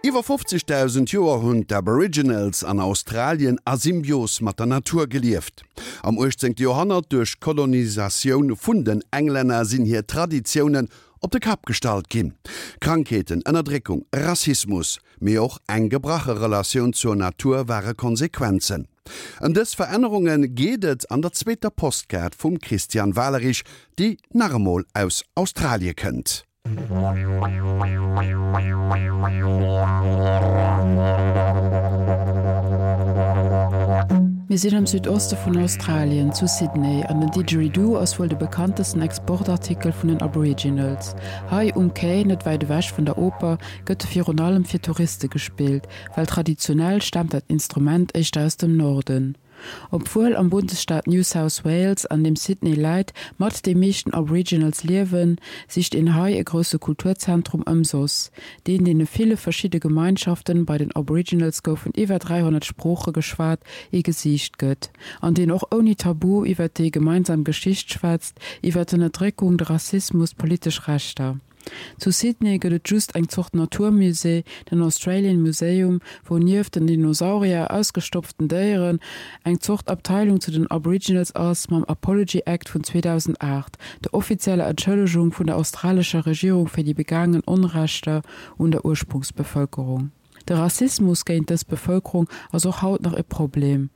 Iwwer 50.000 Joer hunn d'Aboriginals an Australien a Symbios mat der Natur gelieft. Am 18. Joerhonnert, duerch d'Kolonisatioun vun den Englänner, sinn hir Traditiounen op de Kapp gestallt ginn. Krankheeten, Ënnerdréckung, Rassismus, mee och eng gebrache Relatioun zur Natur ware Konsequenzen. Ëm dës Verännerunge geet et an der zweeter Postkaart vum Christian Walerich, déi nach emol aus Australie kënnt. Mir sinn am Südoste vun Australien, zu Sydney, an den Didgeridoo ass wuel de bekanntesten Exportartikel vun den Aboriginals. Hei um Quai, net wäit ewech vun der Oper, gëtt e virun allem fir Touriste gespillt, well traditionell staamt dat Instrument éischter aus dem Norden. Obwuel am Bundesstaat New South Wales, an deem Sydney läit, mat déi meeschten Aboriginals liewen, sicht een hei e grousse Kulturzentrum ëmsoss, deen deene ville verschidde Gemeinschaften, bei den Aboriginals goufen iwwer 300 Sprooche geschwat, ee Gesiicht gëtt, an deen och ouni Tabu iwwer déi gemeinsam Geschicht schwätzt, iwwer d'Ënnerdréckung, de Rassismus, d'politesch Rechter. Zu Sydney gëtt et just eng Zort Naturmusée, den Australian Museum, wou nieft den Dinosaurier, ausgestopften Déieren, eng Zort Abteilung zu den Aboriginals ass, mam Apology Act vun 2008, der offizieller Entschëllegung vun der australescher Regierung fir déi begaangen Onrechter un der Ursprungsbevëlkerung. De Rassismus géint dës Bevëlkerung ass och haut nach e Problem.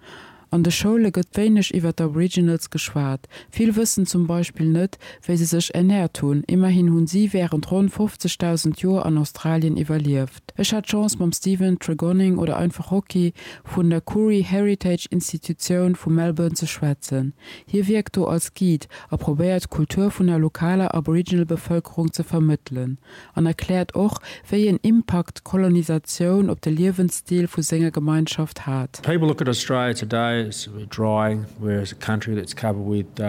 An de Schoule gëtt wéineg iwwer d'Aboriginals geschwat. Vill wëssen zum Beispill net, wéi se sech ernäert hunn. Immerhin hunn si wärend ronn 50.000 Joer an Australien iwwerlieft. Ech hat d'Chance mam Stephen Tregonning oder einfach Rocky vun der Koorie Heritage Institutioun vu Melbourne ze schwätzen. Hie wierkt do als Guide a probéiert d'Kultur vun der lokaler Aboriginal-Bevëlkerung ze vermëttelen. An erkläert och, wéi een Impakt d'Kolonisatioun op de Liewensstil vu senger Gemeinschaft hat. People look at Australia today as dry, whereas a country that's covered with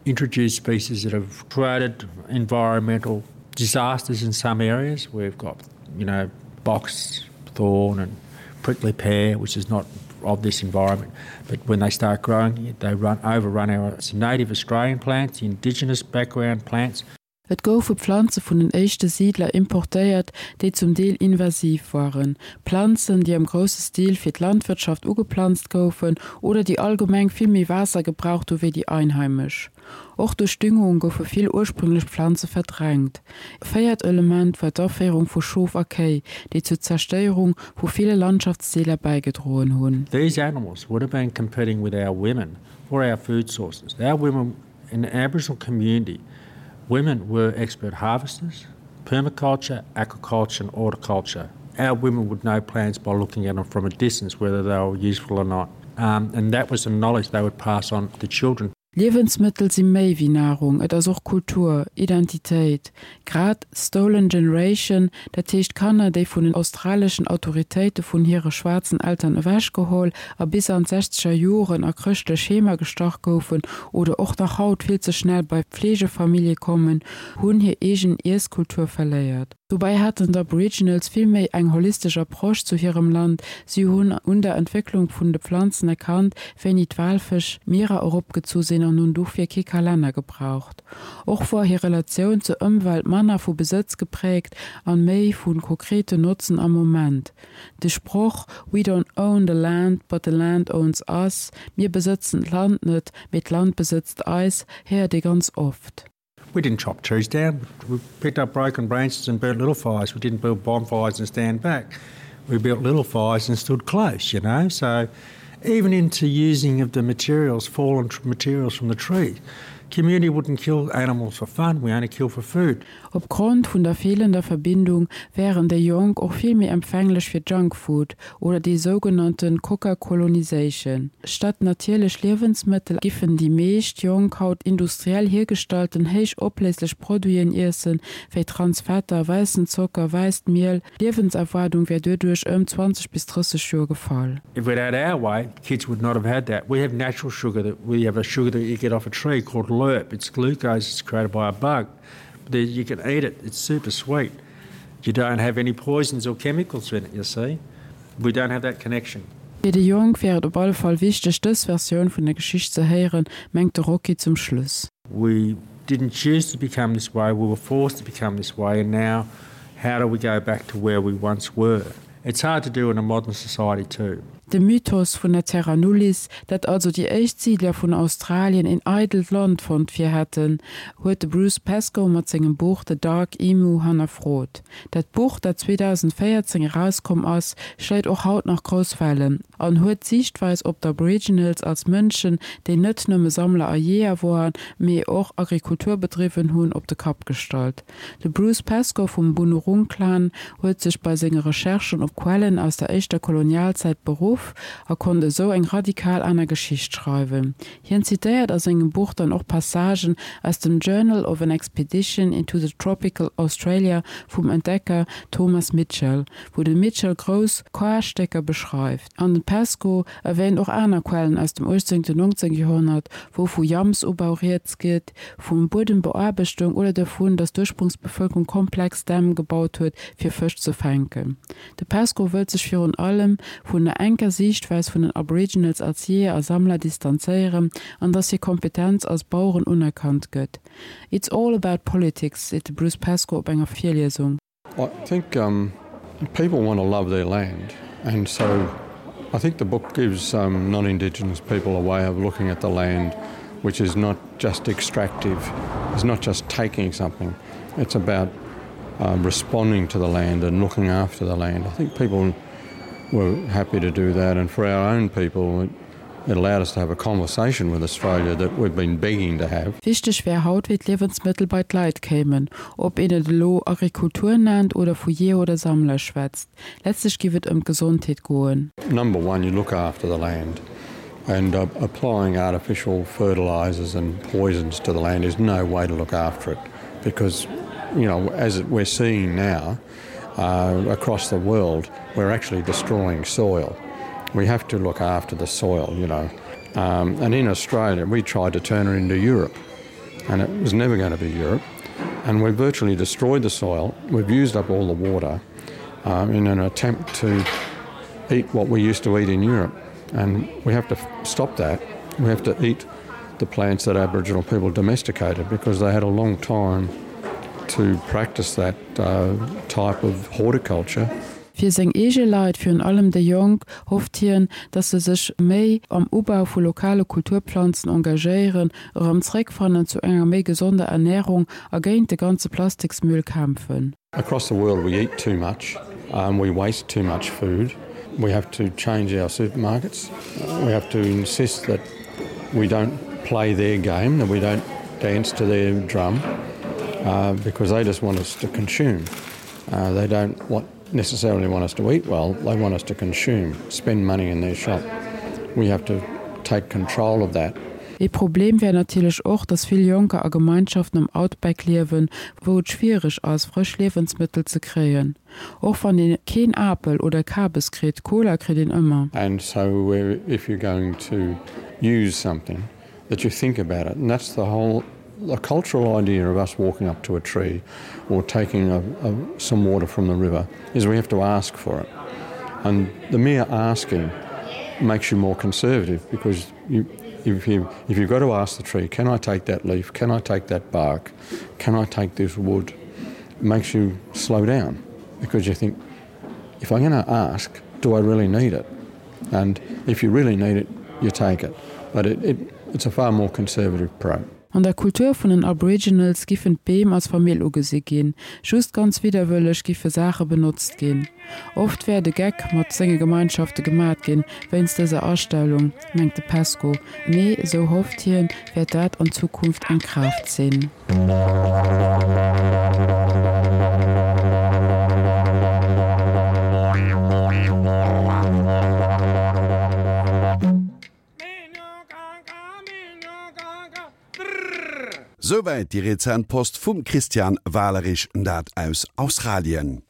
introduced species that have created environmental disasters in some areas. We've got, you know, box thorn and prickly pear, which is not of this environment. But when they start growing, they run overrun our native Australian plants, the indigenous background plants. Et goufe Planze vun den éischte Siidler importéiert, déi zum Deel invasiv waren, Planzen, déi am grousse Stil fir d'Landwirtschaft ugeplanzt goufen oder déi allgemeng vill méi Waasser gebraucht hu wéi déi einheimesch. Och duerch Düngung goufe vill ursprünglech Planze verdrängt. E véiert Element war d'Aféierung vu Schof a Kéi, déi zur Zerstéierung vu ville Landschaftsdeeler bäigedroen hunn. These animals would have been competing with our women for our food sources. Our women In the Aboriginal community, women were expert harvesters, permaculture, aquaculture and horticulture. Our women would know plants by looking at them from a distance whether they were useful or not. Um, and that was the knowledge they would pass on to children. Liewensmëttel si méi wéi Nahrung, et ass och Kultur, Identitéit. Grad Stolen Generation, dat heescht Kanner, déi vun den australeschen Autoritéite vun hire schwaarzen Eltern ewechgeholl a bis an d'sechzeger Joren a chrëschtlech Heemer gestach goufen oder och nach haut vill ze schnell bei Pflegefamillje kommen, hunn hir eegen Iesskultur verléiert. Dobäi haten d'Aboriginals vill méi eng holistesch Approche zu hirem Land, si hunn un der Entwécklung vun de Pflanzen erkannt, wéini d'Walfësch d'Mierer eropgezu sinn an hunn dofir kee Kalenner gebraucht. Och wor hir Relatioun zur Ëmwelt manner vu Besëtz gepräägt an méi vu konkreten Notzen am Moment. De Sproch We don't own the land, but the land owns us, Mir besëtzen d'Land net, mee d'Land besëtzt eis, héiert ee ganz oft. We didn't chop trees down, we picked up broken branches and burnt little fires, we didn't build bonfires and stand back, we built little fires and stood close, you know, so even into using of the materials, fallen materials from the tree. Community wouldn't kill animals for fun, we only kill for food. Opgrond vun der feelender Verbindung wären déi Jonk och vill méi empfänglech fir Junkfood oder déi sougenannten Coca-Colonisation. Statt natierlech Liewensmëttel giffen déi meescht Jonk haut industriell hiergestallten héich opléislech Produiten iessen, wéi Transfetter, wäissen Zocker, wäisst Miel, D'Liewenserwaardung wär doduerch ëm 20 bis 30 Joer gefall. If we'd had our way, kids would not have had that. We have natural sugar that we have a sugar that you get off a tree called lerp. It's glucose, it's created by a bug. But you can eat it, it's super sweet. You don't have any poisons or chemicals in it, you see. We don't have that connection. Fir déi Jonk wär et op alle Fall wichteg, dës Versioun vun der Geschicht ze héieren, mengt de Rocky zum Schluss. We didn't choose to become this way, we were forced to become this way and now how do we go back to where we once were? It's hard to do in a modern society too. De Mythos vun der Terra Nullis, dat also déi éischt Siidler vun Australien een eidelt Land fonnt fir hätten, huet de Bruce Pascoe mat sengem Buch The Dark Emu hannerfrot. Dat Buch, dat 2014 erauskomm ass, schléit och haut nach grouss Wellen an huet d'Siichtweis op d'Aboriginals als Mënschen, déi net nëmme Sammler a Jeeër woaren, mee och Agrikultur bedriwwen hunn, op de Kapp gestallt. De Bruce Pascoe vum Boonwurrung Clan huet sech bei senge Recherchen op Quellen aus der éischter Kolonialzäit beruff a konnt esou eng radikal aner Geschicht schreiwen. Hien zitéiert a sengem Buch dann och Passagen aus dem Journal of an Expedition into the Tropical Australia vum Entdecker Thomas Mitchell, wou de Mitchell grouss Karstécker beschreift. An de Pascoe erwähnt och aner Quellen aus dem 18. 19. Joerhonnert, wou vu Jamsubau rieds geet, vu Buedembeaarbechtung oder dovun, datt d'Ursprungsbevëlkerung komplex Dämm gebaut huet, fir Fësch ze fänken. De Pascoe wëllt sech virun allem vun der enker Siichtweis vun den Aboriginals als Jeeër a Sammler distanzéieren an datt hir Kompetenz als Baueren unerkannt gëtt. It's all about politics, seet de Bruce Pascoe op enger Virliesung. I think um, people want to love their land and so I think the book gives um, non-indigenous people a way of looking at the land which is not just extractive, it's not just taking something, it's about um, responding to the land and looking after the land. I think people were happy to do that and for our own people it, it allowed us to have a conversation with Australia that we've been begging to have. Wichteg wär haut, wéi d'Liewensmëttel bei d'Leit kéimen, ob een et elo Agrikultur nennt oder vu Jeeër oder Sammler schwätzt. Letztlech giff et ëm d'Gesondheet goen. Number one, you look after the land and applying artificial fertilizers and poisons to the land is no way to look after it because you know as we're seeing now uh, across the world we're actually destroying soil. We have to look after the soil, you know. Um, and in Australia we tried to turn it into Europe and it was never going to be Europe. And we virtually destroyed the soil. We've used up all the water um, in an attempt to eat what we used to eat in Europe. And we have to stop that. We have to eat the plants that Aboriginal people domesticated because they had a long time to practice that uh, type of horticulture. Fir seng eege Leit, virun allem déi Jonk, hofft hien, datt se sech méi am Ubau vu lokale Kulturplanzen engagéieren, erëm zréckfannen zu enger méi gesonder Ernärung a géint de ganze Plastiksmüll kämpfen. Across the world we eat too much, um, we waste too much food. We have to change our supermarkets. We have to insist that we don't play their game, that we don't dance to their drum, uh, because they just want us to consume. Uh, they don't want necessarily want us to eat well, they want us to consume, spend money in their shop. We have to take control of that. Ee Problem wär natierlech och, datt vill Jonker a Gemeinschaften am Outback liewen, wou et schwiereg ass, frësch Liewensmëttel ze kréien. Och wann ee keen Apel oder Kabes kritt, Cola kritt een ëmmer. And so if you're going to use something, that you think about it. And that's the whole the cultural idea of us walking up to a tree or taking a, a, some water from the river is we have to ask for it. And the mere asking makes you more conservative because you, if, you, if you've got to ask the tree, can I take that leaf? Can I take that bark? Can I take this wood? It makes you slow down because you think, if I'm going to ask, do I really need it? And if you really need it, you take it. But it, it, it's a far more conservative approach. An der Kultur vun den Aboriginals giffen d'Beem als Famill ugesi ginn, just ganz widderwëlleg giffe Saache benotzt ginn. Oft wär de Geck mat senge Gemeinschafte gemat ginn wéinst dëser Astellung, mengt de Pesco, mee, esou hofft hien, wäert dat an Zukunft eng Kraaft sinn. Souwäit déi rezent Post vum Christian Walerich, dat aus Australien.